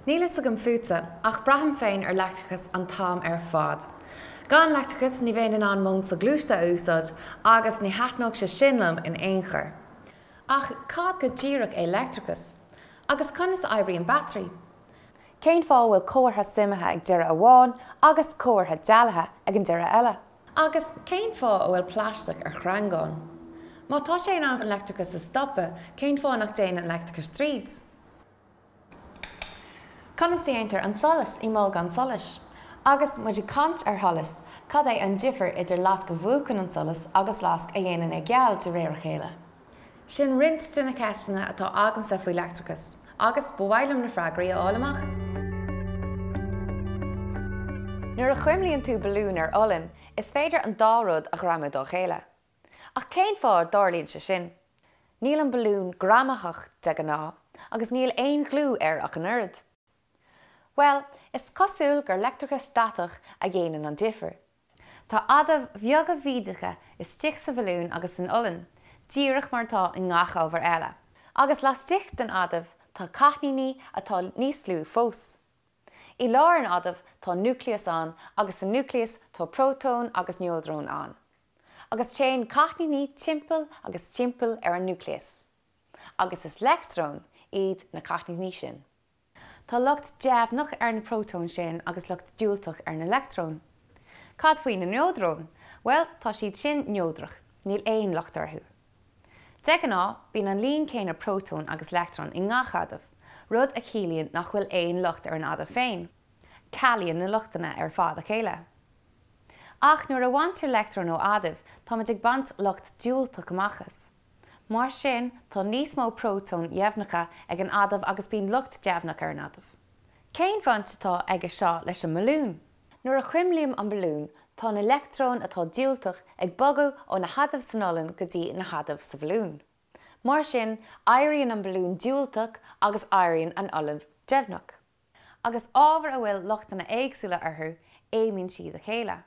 Níl fhios agam fútsa, ach braithim féin ar leictreachas an t-am ar fad. Gan leictreachas ní bheinn in ann m'fhón soghluaiste a úsáid agus ní thaitneodh sé sin liom in aon chor. Ach cad go díreach é leictreachas? Agus conas a oibríonn battery? Cén fáth a bhfuil comhartha suimithe ag deireadh amháin agus comhartha dealaithe ag an deireadh eile? Agus cén fáth a bhfuil plaisteach ar shreangán? Má tá sé in ann an leictreachas a stopadh, cén fáth nach dtéann an leictreachas tríd? Conas a dhéantar an solas i mbolgán solais? Agus muid ag caint ar sholas, cad é an difear idir lasc a mhúchann an solas agus lasc a dhéanann é geal de réir a chéile? Sin roinnt de na ceisteanna atá agamsa faoi leictreachas, agus ba mhaith liom na freagraí a fháil amach. Nuair a chuimlíonn tú balún ar olann, is féidir an dá rud a ghreamú dá chéile. Ach cén fáth a dtarlaíonn sé sin? Níl an balún greamaitheach de ghnáth, agus níl aon ghliú air ach an oiread. Bhuel, is cosúil gur leictreachas statach a dhéanann an difear. Tá adaimh bheaga bhídeacha istigh sa bhalún agus san olann, díreach mar atá i ngach ábhar eile. Agus laistigh den adamh tá cáithníní atá níos lú fós. I lár an adaimh tá núicléas ann agus sa núicléas tá prótóin agus neodróin ann. Agus téann cáithníní timpeall agus timpeall ar an núicléas. Agus is leictreoin iad na cáithníní sin. Tá lucht deimhneach ar na prótóin sin agus lucht diúltach ar na leictreoin. Cad faoi na neodróin? Bhuel, tá siad sin neodrach, níl aon lucht orthu. De ghnáth, bíonn an líon céanna prótón agus leictreon i ngach adamh, rud a chiallaíonn nach bhfuil aon lucht ar an adamh féin. Cealaíonn na luchtanna ar fad a chéile. Ach nuair a bhaintear leictreon ó adamh, táimid ag baint lucht diúltach amach as. Mar sin, tá níos mó prótóin dheimhneacha ag an adamh agus bíonn lucht deimhneach ar an adamh. Cén bhaint atá aige seo leis an mbalún? Nuair a chuimlím an balún, tá na leictreoin atá diúltach ag bogadh ó na hadaimh san olann go dtí na hadaimh sa bhalún. Mar sin, éiríonn an balún diúltach agus éiríonn an olann deimhneach. Agus ábhair a bhfuil luchtanna éagsúla orthu, aomann siad a chéile.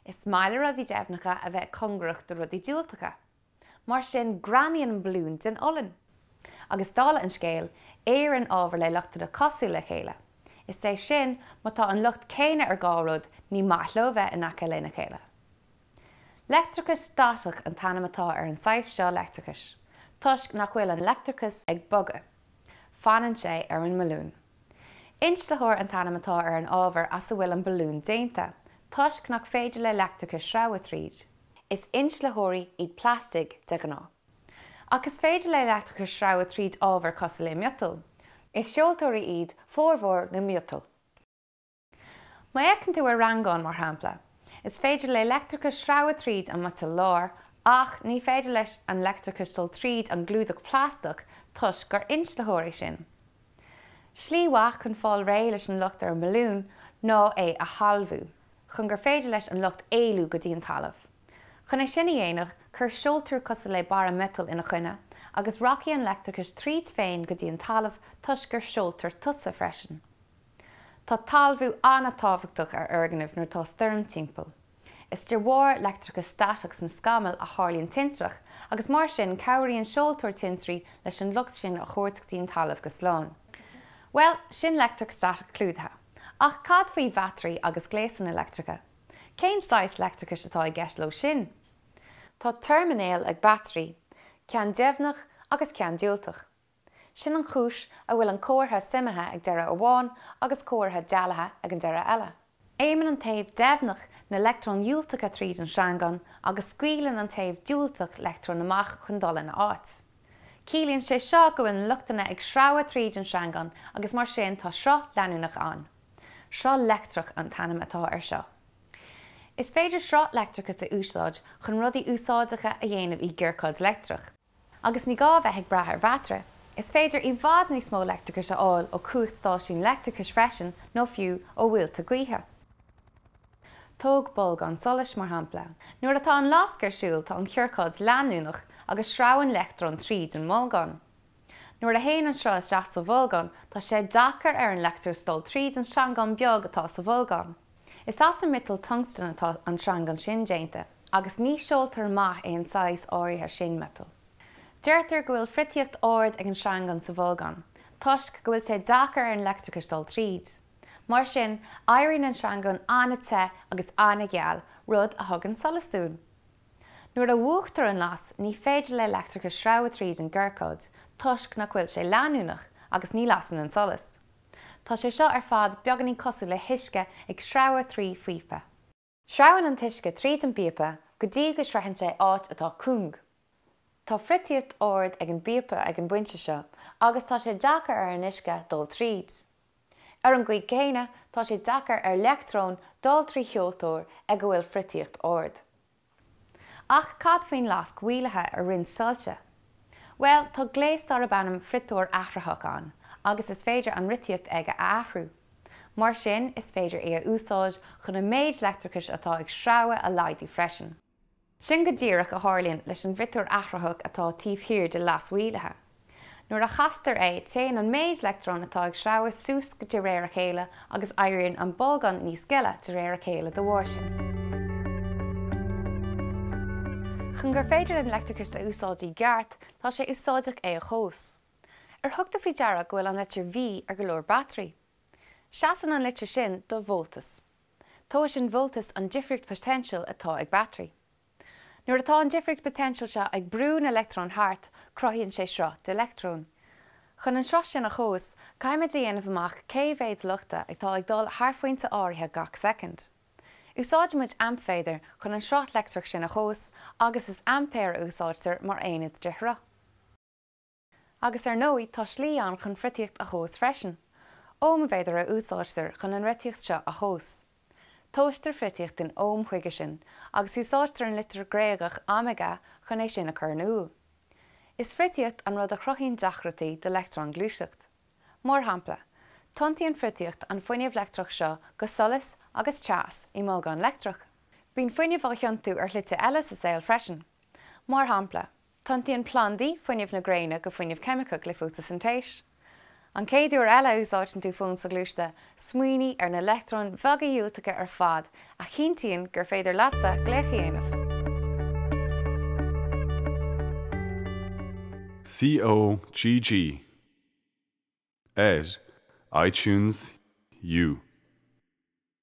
Is maith le rudaí deimhneacha a bheith cóngarach do rudaí diúltacha. Mar sin, greamaíonn an balún den olann. Agus dála an scéil, iarrann ábhair le luchtanna cosúla le chéile. Is é sin, má tá an lucht céanna ar dhá rud, ní maith leo bheith in aice lena chéile. Leictreachas statach an t-ainm atá ar an saghas seo leictreachais, toisc nach bhfuil an leictreachas ag bogadh. Fanann sé ar an mbalún. Inslitheoir an t-ainm atá ar an ábhar as a bhfuil an balún déanta, toisc nach féidir le leictreachas sreabhadh tríd. Is inslitheoirí iad plaistigh de ghnáth. Ach is féidir le leictreachas sreabhadh tríd ábhar cosúil le miotal. Is seoltóirí iad formhór na miotal. Má fhéachann tú ar shreangán, mar shampla, is féidir le leictreachas sreabhadh tríd an miotal láir ach ní féidir leis an leictreachas dul tríd an gclúdach plaisteach toisc gur inslitheoir é sin. Slí mhaith chun fáil réidh leis an lucht ar an mbalún ná é a thalmhú, chun gur féidir leis an lucht éalú go dtí an talamh. Chun é sin a dhéanamh, cuir seoltóir cosúil le barra miotail ina choinne agus rachaidh an leictreachas tríd féin go dtí an talamh toisc gur seoltóir tusa freisin. Tá talmhú an-tábhachtach ar fhoirgnimh nuair atá stoirm timpeall. Is de bharr leictreachas statach sna scamaill a tharlaíonn tintreach agus mar sin cabhraíonn seoltóir tintrí leis an lucht sin a thabhairt go dtí an talamh go slán. Bhuel, sin leictreachas statach clúdaithe. Ach cad faoi bhataraí agus gléasanna leictreacha? Cén saghas leictreachais atá i gceist leo sin? Tá teirminéil ag bataraí, ceann deimhneach agus ceann diúltach. Sin an chúis a bhfuil an comhartha suimithe ag deireadh amháin agus comhartha dealaithe ag an deireadh eile. Aomann an taobh deimhneach na leictreoin dhiúltacha tríd an sreangán agus scaoileann an taobh diúltach leictreoin amach chun dul ina áit. Ciallaíonn sé seo go bhfuil na luchtanna ag sreabhadh tríd an sreangán agus mar sin tá sruth leanúnach ann. Sruth leictreach an t-ainm atá air seo. Is féidir sruth leictreachais a úsáid chun rudaí úsáideacha a dhéanamh i gciorcáid leictreach. Agus ní gá a bheith ag brath ar bhataire, is féidir i bhfad níos mó leictreachais a fháil ó chumhachtstáisiún leictreachais freisin nó fiú ó mhuilte gaoithe. Tóg bolgán solais, mar shampla. Nuair atá an lasc ar siúl tá an chiorcáid leanúnach agus sreabhann leictreoin tríd an mbolgán. Nuair a théann an sruth isteach sa bholgán tá sé deacair ar an leictreachas dul tríd an sreangán beag atá sa bholgán. Is as an miotal tungstan atá an sreangán sin déanta, agus ní seoltóir maith é an saghas áirithe sin miotail. Deirtear go bhfuil friotaíocht ard ag an sreangán sa bholgán. Toisc go bhfuil sé deacair ar an leictreachas dul tríd. Mar sin, éiríonn an sreangán an-te agus an-gheal, rud a thugann solas dúinn. Nuair a mhúchtar an las, ní féidir le leictreachas sreabhadh tríd an gciorcad, toisc nach bhfuil sé leanúnach, agus ní lasann an solas. Tá sé seo ar fad beagáinín cosúil le huisce ag sreabhadh trí phíopa. Sreabhann an t-uisce tríd an bpíopa go dtí go sroicheann sé áit atá cúng. Tá friotaíocht ard ag an bpíopa ag an bpointe seo agus tá sé deacair ar an uisce dul tríd. Ar an gcaoi chéanna, tá sé deacair ar leictreoin dul trí sheoltóir ag a bhfuil friotaíocht ard. Ach cad faoin lasc mhaolaithe ar roinnt soilse? Bhuel, tá gléas darb ainm friotóir athraitheach ann agus is féidir an fhriotaíocht aige a athrú. Mar sin, is féidir é a úsáid chun an méid leictreachais atá ag sreabhadh a laghdú freisin. Sin go díreach a tharlaíonn leis an bhfriotóir athraitheach atá taobh thiar de lasc mhaolaithe. Nuair a chastar é, téann an méid leictreon atá ag sreabhadh suas de réir a chéile agus éiríonn an bolgán níos gile de réir a chéile dá bharr sin. Chun gur féidir linn leictreachas a úsáid i gceart, tá sé úsáideach é a thomhas. Ar thug tú faoi deara go bhfuil an litir V ar go leor batairí? Seasann an litir sin do voltas. Tomhaiseann voltas an difríocht poitéinsil atá ag batairí. Nuair atá an difríocht poitéinsil seo ag brú na leictreon thart, cruthaíonn sé sruth de leictreoin. Chun an sruth sin a thomhas, caithfimid a dhéanamh amach cé mhéad luchta atá ag dul thar phointe áirithe gach soicind. Úsáidimid aimpmhéadar chun an sruth leictreach sin a thomhas agus is aimpéar a úsáidtear mar aonad de shruth. Agus ar ndóigh, tá slí ann chun friotaíocht a thomhas freisin. Ómméadar a úsáidtear chun an fhriotaíocht seo a thomhas. Tomhaistear friotaíocht in óm chuige sin, agus úsáidtear an litir Ghréagach omega chun é sin a chur in iúl. Is friotaíocht an rud a chruthaíonn deacrachtaí do leictreoin gluaiseacht. Mar shampla, tiontaíonn friotaíocht an fuinneamh leictreach seo go solas agus teas i mbolgán leictreach. Bíonn fuinneamh á thiontú ar shlite eile sa saol freisin. Mar shampla, tiontaíonn plandaí fuinneamh na gréine go fuinneamh ceimiceach le fótasintéis. An chéad uair eile a úsáideann tú fón soghluaiste, smaoinigh ar na leictreoin bheaga dhiúltacha ar fad a chinntíonn gur féidir leatsa glaoch a dhéanamh. COGG ar iTunes U.